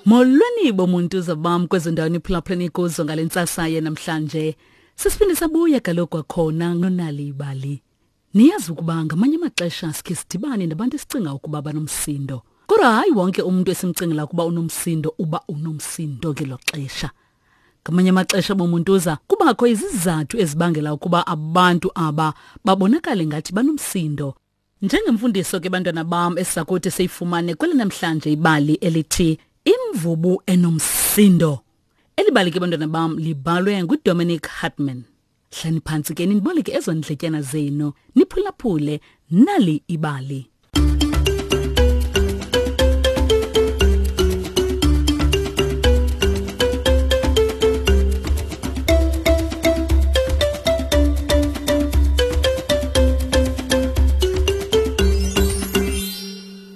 Molweni bomuntu zabam kwezo ndawo niphulaphuleni kuzo ngale ntsasa yenamhlanje. Sisiphinde sabuya kaloku kwakhona nonali ibali. Niyazi ukuba ngamanye amaxesha sikhe sidibane nabantu esicinga ukuba banomsindo. Kodwa hayi wonke umuntu esimcingela ukuba unomsindo uba unomsindo ngelo xesha. Ngamanye amaxesha bomuntuza kubakho izizathu ezibangela ukuba abantu aba babonakale ngathi banomsindo. Njengemfundiso ke bantwana bam esizakuthi siyifumane kweli namhlanje ibali elithi Imvubu enomsindo. Eli bali ke bantwana bam libhalwe nguDominic Hartman. Hlani phantsi ke niboleke ezo ndletyana zenu niphulaphule nali ibali.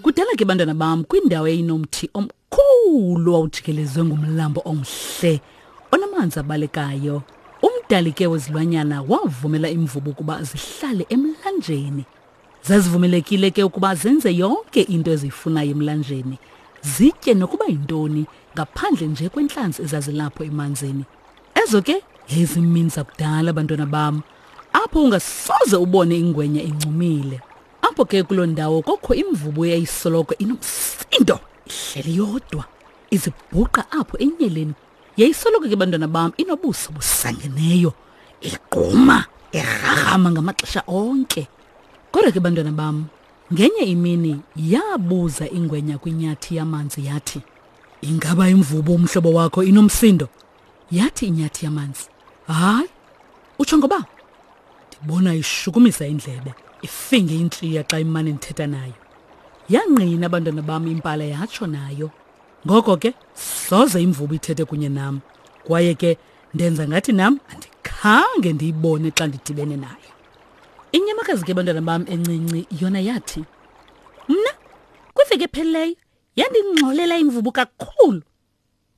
Kudala ke bantwana bam kwindawo eyinomthi omkhulu wawujikelezwe ngumlambo omhle onamanzi abalekayo. Umdali ke wezilwanyana wavumela imvubu ukuba zihlale emlanjeni. Zazivumelekile ke ukuba zenze yonke into eziyifunayo emlanjeni, zitye nokuba yintoni ngaphandle nje kwentlanzi ezazilapho emanzini. Ezo ke yayizimini zakudala bantwana bam, apho ungasoze ubone ingwenya incumile. Apho ke kuloo ndawo kokho imvubu eyayisoloko inomsindo, ihleli yodwa, izibhuqa apho enyeleni. Yayisoloko ke bantwana bam inobuso busangeneyo, igquma, irharhama ngamaxesha onke. Kodwa ke bantwana bam, ngenye imini yabuza ingwenya kwinyathi yamanzi yathi, Ingaba imvubu umhlobo wakho inomsindo? Yathi inyathi yamanzi, Hayi, utsho ngoba? Ndibona ishukumisa indlebe, ifinge intliya xa imane ndithetha nayo. Yangqina abantwana bam impala yatsho nayo. Ngoko ke soze imvubu ithethe kunye nam. Kwaye ke ndenza ngathi nam andikhange ndiyibone xa ndidibene nayo. Inyamakazi ke bantwana bam encinci yona yathi, Mna kwiveki ephelileyo yandingxolela imvubu kakhulu.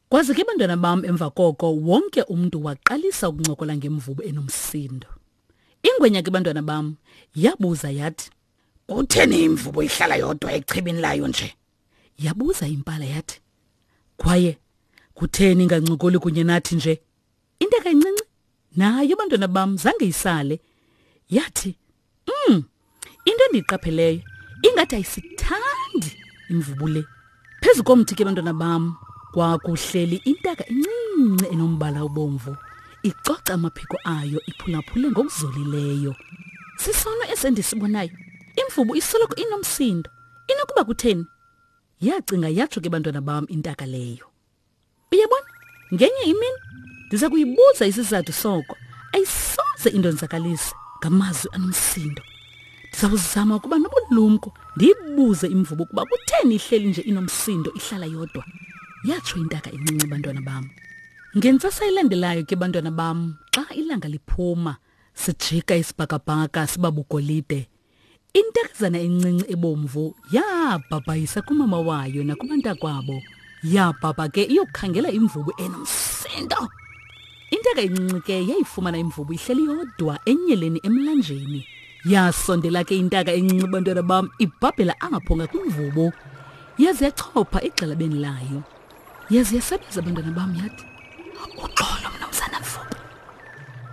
Kwaze ke bantwana bam emva koko wonke umntu waqalisa ukuncokola ngemvubu enomsindo. Ingwenya ke bantwana bam yabuza yathi, Kutheni imvubu ihlala yodwa echibini layo nje? Yabuza impala yathi, Kwaye kutheni ingancokoli kunye nathi nje? Intaka encinci nayo bantwana bam zange isale. Yathi, into endiyiqapheleyo ingathi ayisithandi imvubu le. Phezu komthi ke bantwana bam kwakuhleli intaka encinci enombala obomvu icoca amaphiko ayo iphulaphule ngokuzolileyo. Sisono esendisibonayo. Imvubu isoloko inomsindo. Inokuba kutheni? Yacinga yatsho ke bantwana bam intaka leyo. Uyabona, ngenye imini ndiza kuyibuza isizathu soko. Ayisoze indonzakalise ngamazwi anomsindo. Ndiza kuzama ukuba nobulumko ndiyibuze imvubu ukuba kutheni ihleli nje inomsindo ihlala yodwa. Yatsho intaka encinci bantwana bam. Ngentsasa elandelayo ke bantwana bam, xa ilanga liphuma, sijika isibhakabhaka siba bugolide. Intakazana encinci ebomvu yabhabhayisa kumama wayo nakubantakwabo. Yabhabha ke iyokukhangela imvubu enomsindo. Intaka encinci ke yayifumana imvubu ihleli yodwa enyeleni emlanjeni. Yasondela ke intaka encinci bantwana bam ibhabhela apho ngakwimvubu. Yaze yachopha egxalabeni layo. Yaze yasebenza abantwana bam yathi, Uxolo mnumzana Mvubu.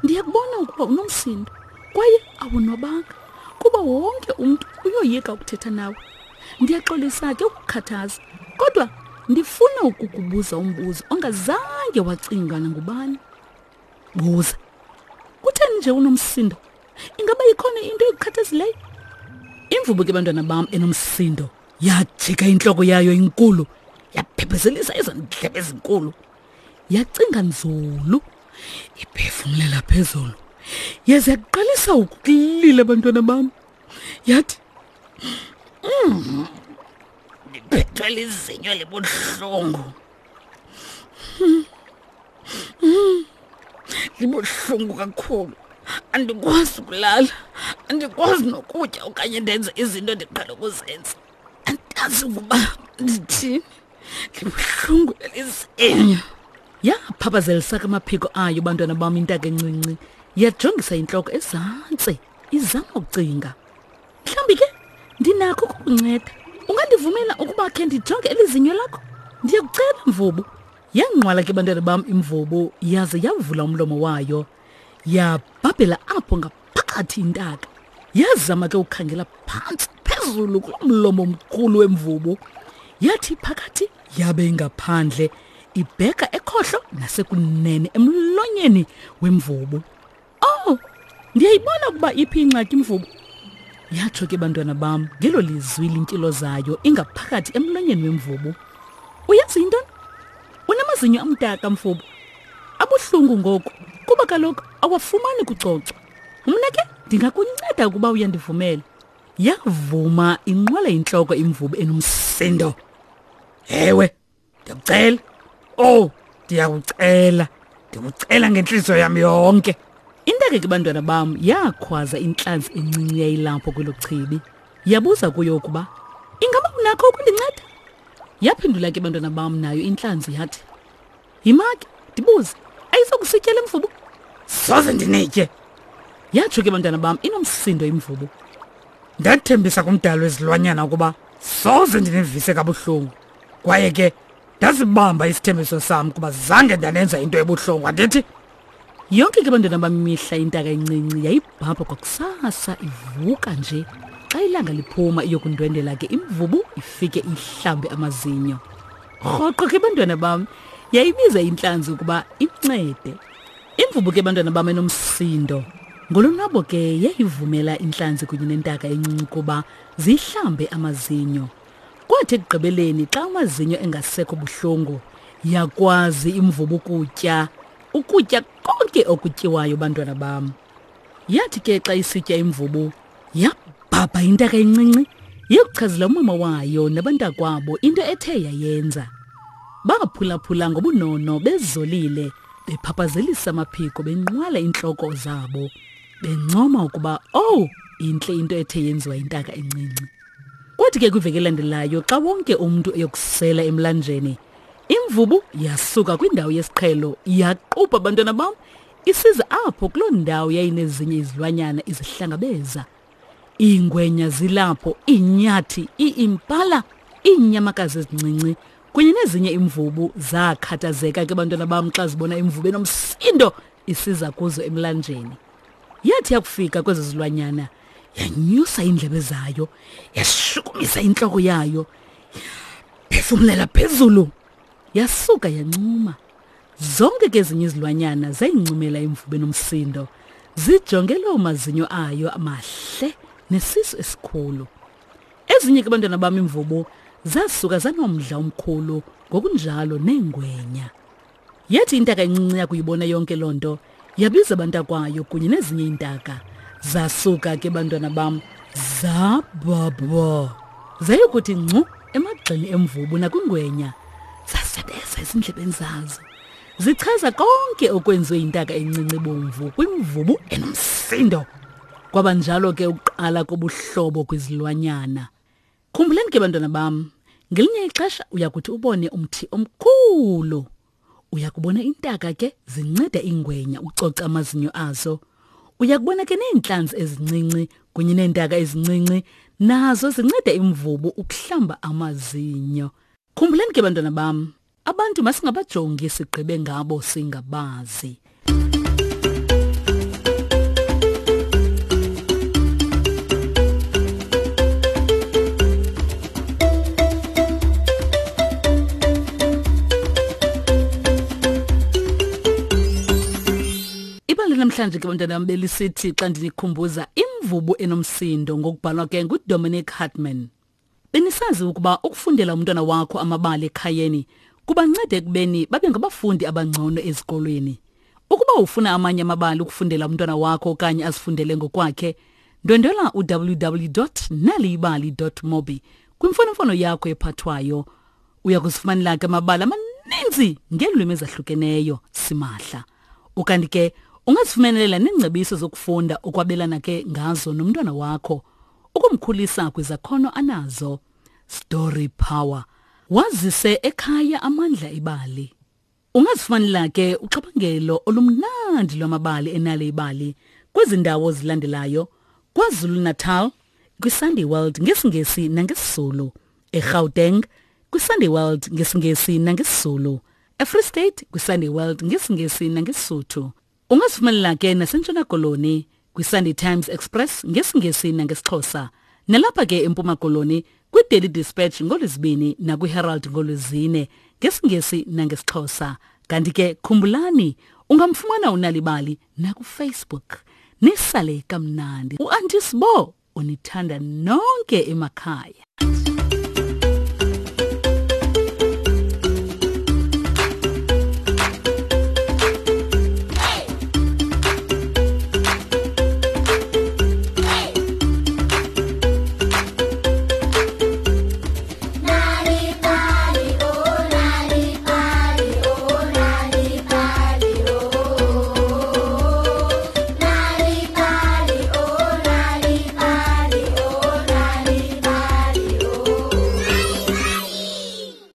Ndiyakubona ukuba unomsindo kwaye awonwabanga kuba wonke umntu uyoyika ukuthetha nawe. Ndiyaxolisa ke ukukhathaza kodwa ndifuna ukukubuza umbuzo ongazange wacingwa nangubani. Buza. Kutheni nje unomsindo? Ingaba ikhona into ekukhathazileyo? Imvubu ke bantwana bam enomsindo yajika intloko yayo inkulu yaphephezelisa ezo ndlebe ezinkulu. Yacinga nzulu iphefumlela phezulu. Yaze yaqalisa ukulila bantwana bam. Yathi Ndiphethwe lizinyo libuhlungu. Libuhlungu kakhulu. Andikwazi ukulala, andikwazi nokutya okanye ndenze izinto endiqhele ukuzenza. Andazi ukuba ndithini. Libuhlungu elizinyo. Yaphaphazelisa ke amaphiko ayo bantwana bam intaka encinci. Yajongisa intloko ezantsi izama ukucinga. Mhlawumbi ke ndinakho ukukunceda. Ungandivumela ukuba khe ndijonge elizinyo lakho? Ndiyakucela mvubu. Yanqwala ke bantwana bam imvubu yaze yavula umlomo wayo. Yabhabhela apho ngaphakathi intaka. Yazama ke ukukhangela phantsi phezulu kulo mlomo omkhulu wemvubu. Yathi phakathi yabe ingaphandle ibheka ekhohlo nasekunene emlonyeni wemvubu. Oh, ndiyayibona ukuba iphi ingxaki imvubu. Yatsho ke bantwana bam ngelo lizwi lintilo zayo ingaphakathi emlonyeni wemvubu. Uyazi yintoni? Unamazinyo amdaka mvubu. Abuhlungu ngoku kuba kaloku awafumani kucocwa. Mna ke ndingakunceda ukuba uyandivumela. Yavuma inqwala intloko imvubu enomsindo. Ewe, ndiyakucela. Oh, ndiyakucela. Ndikucela ngentliziyo yam yonke. Intaka ke bantwana bam yakhwaza intlanzi encinci yayilapho kwelo chibi. Yabuza kuyo ukuba ingaba unakho ukundinceda? Yaphendula ke bantwana bam nayo intlanzi yathi, Yima ke ndibuze, ayizokusitya le mvubu? Soze ndinitye. Yatsho ke bantwana bam inomsindo imvubu. Ndathembisa kumdali wezilwanyana ukuba soze ndinivise kabuhlungu. Kwaye ke ndazibamba isithembiso sam kuba zange ndanenza into ebuhlungu andithi? Yonke ke bantwana bam imihla intaka encinci yayibhabha kwakusasa ivuka nje. Xa ilanga liphuma iyokundwendela ke imvubu ifike ihlambe amazinyo. Rhoqo ke bantwana bam yayibiza intlanzi ukuba imncede. Imvubu ke bantwana bam enomsindo. Ngolonwabo ke yayivumela intlanzi kunye nentaka encinci ukuba zihlambe amazinyo. Kwathi ekugqibeleni xa amazinyo engasekho buhlungu yakwazi imvubu ukutya ukutya konke okutyiwayo bantwana bam. Yathi ke xa isitya imvubu yabhabha intaka encinci yokuchazela umama wayo nabantakwabo into ethe yayenza. Baphulaphula ngobunono bezolile bephaphazelisa amaphiko benqwala intloko zabo bencoma ukuba owu oh, intle into ethe yenziwa intaka encinci. Kwathi ke kwiveki elandelayo xa wonke umntu eyokusela emlanjeni imvubu yasuka kwindawo yesiqhelo yaqubha abantwana bam isiza apho kuloo ndawo yayinezinye izilwanyana izihlangabeza. Iingwenya zilapho, iinyathi, iimpala, iinyamakazi ezincinci kunye nezinye imvubu zakhathazeka ke bantwana bam xa zibona imvubu enomsindo isiza kuzo emlanjeni. Yathi yakufika kwezo zilwanyana yanyusa iindlebe zayo, yashukumisa intloko yayo, phefumlela phezulu, yasuka yancuma. Zonke ke ezinye izilwanyana zayincumela imvubu enomsindo, zijonge loo mazinyo ayo amahle nesisu esikhulu. Ezinye ke abantwana bam imvubu zasuka zanomdla omkhulu ngokunjalo neengwenya. Yathi intaka encinci yakuyibona yonke loo nto yabiza abantakwayo kunye nezinye iintaka. Zasuka ke bantwana bam zabhabha zayokuthi ngcu emagxeni emvubu nakwingwenya zasebeza ezindlebeni zazo zichaza konke okwenziwe yintaka encinci bomvu kwimvubu enomsindo. Kwaba njalo ke ukuqala kobuhlobo kwizilwanyana. Khumbulani ke bantwana bam, ngelinye ixesha uyakuthi ubone umthi omkhulu. Uyakubona intaka ke zinceda ingwenya ucoca amazinyo azo. Uyakubona ke neentlanzi ezincinci kunye neentaka ezincinci nazo zinceda imvubu ukuhlamba amazinyo. Khumbulani ke bantwana bam, Abantu masingabajongi sigqibe ngabo singabazi. Ibali namhlanje ke bantwana bam belisithi xa ndinikhumbuza imvubu enomsindo ngokubhalwa ke nguDominic Hartman. Benisazi ukuba ukufundela umntwana wakho amabali ekhayeni kubanceda ekubeni babe ngabafundi abangcono ezikolweni. Ukuba ufuna amanye amabali ukufundela umntwana wakho okanye azifundele ngokwakhe, ndwendwela uwww.naliyibali.mobi kwimfonomfono yakho ephathwayo. Uya kuzifumanela ke amabali amaninzi ngeelwimi ezahlukeneyo simahla. Ukanti ke ungazifumanelela neengcebiso zokufunda okwabelana ke ngazo nomntwana wakho. Ukumkhulisa kwizakhono anazo. Story Power. Wazise ekhaya amandla ebali. Ungazifumanela ke uxabangelo olumnandi lwamabali enale ibali kwezi ndawo zilandelayo: KwaZulu-Natal kwiSunday World ngesiNgesi nangesiZulu, eGauteng kwiSunday World ngesiNgesi nangesiZulu, eFree State kwiSunday World ngesiNgesi nangeSisuthu. Ungazifumanela ke naseNtshona Koloni kwiSunday Times Express ngesiNgesi nangesiXhosa. Nalapha ke eMpuma Koloni kwiDaily Dispatch ngoLwezibini nakwiHerald ngoLwezine ngesiNgesi nangesiXhosa. Kanti ke khumbulani ungamfumana uNalibali nakuFacebook. Nisale kamnandi. UAnti Sbo unithanda nonke emakhaya.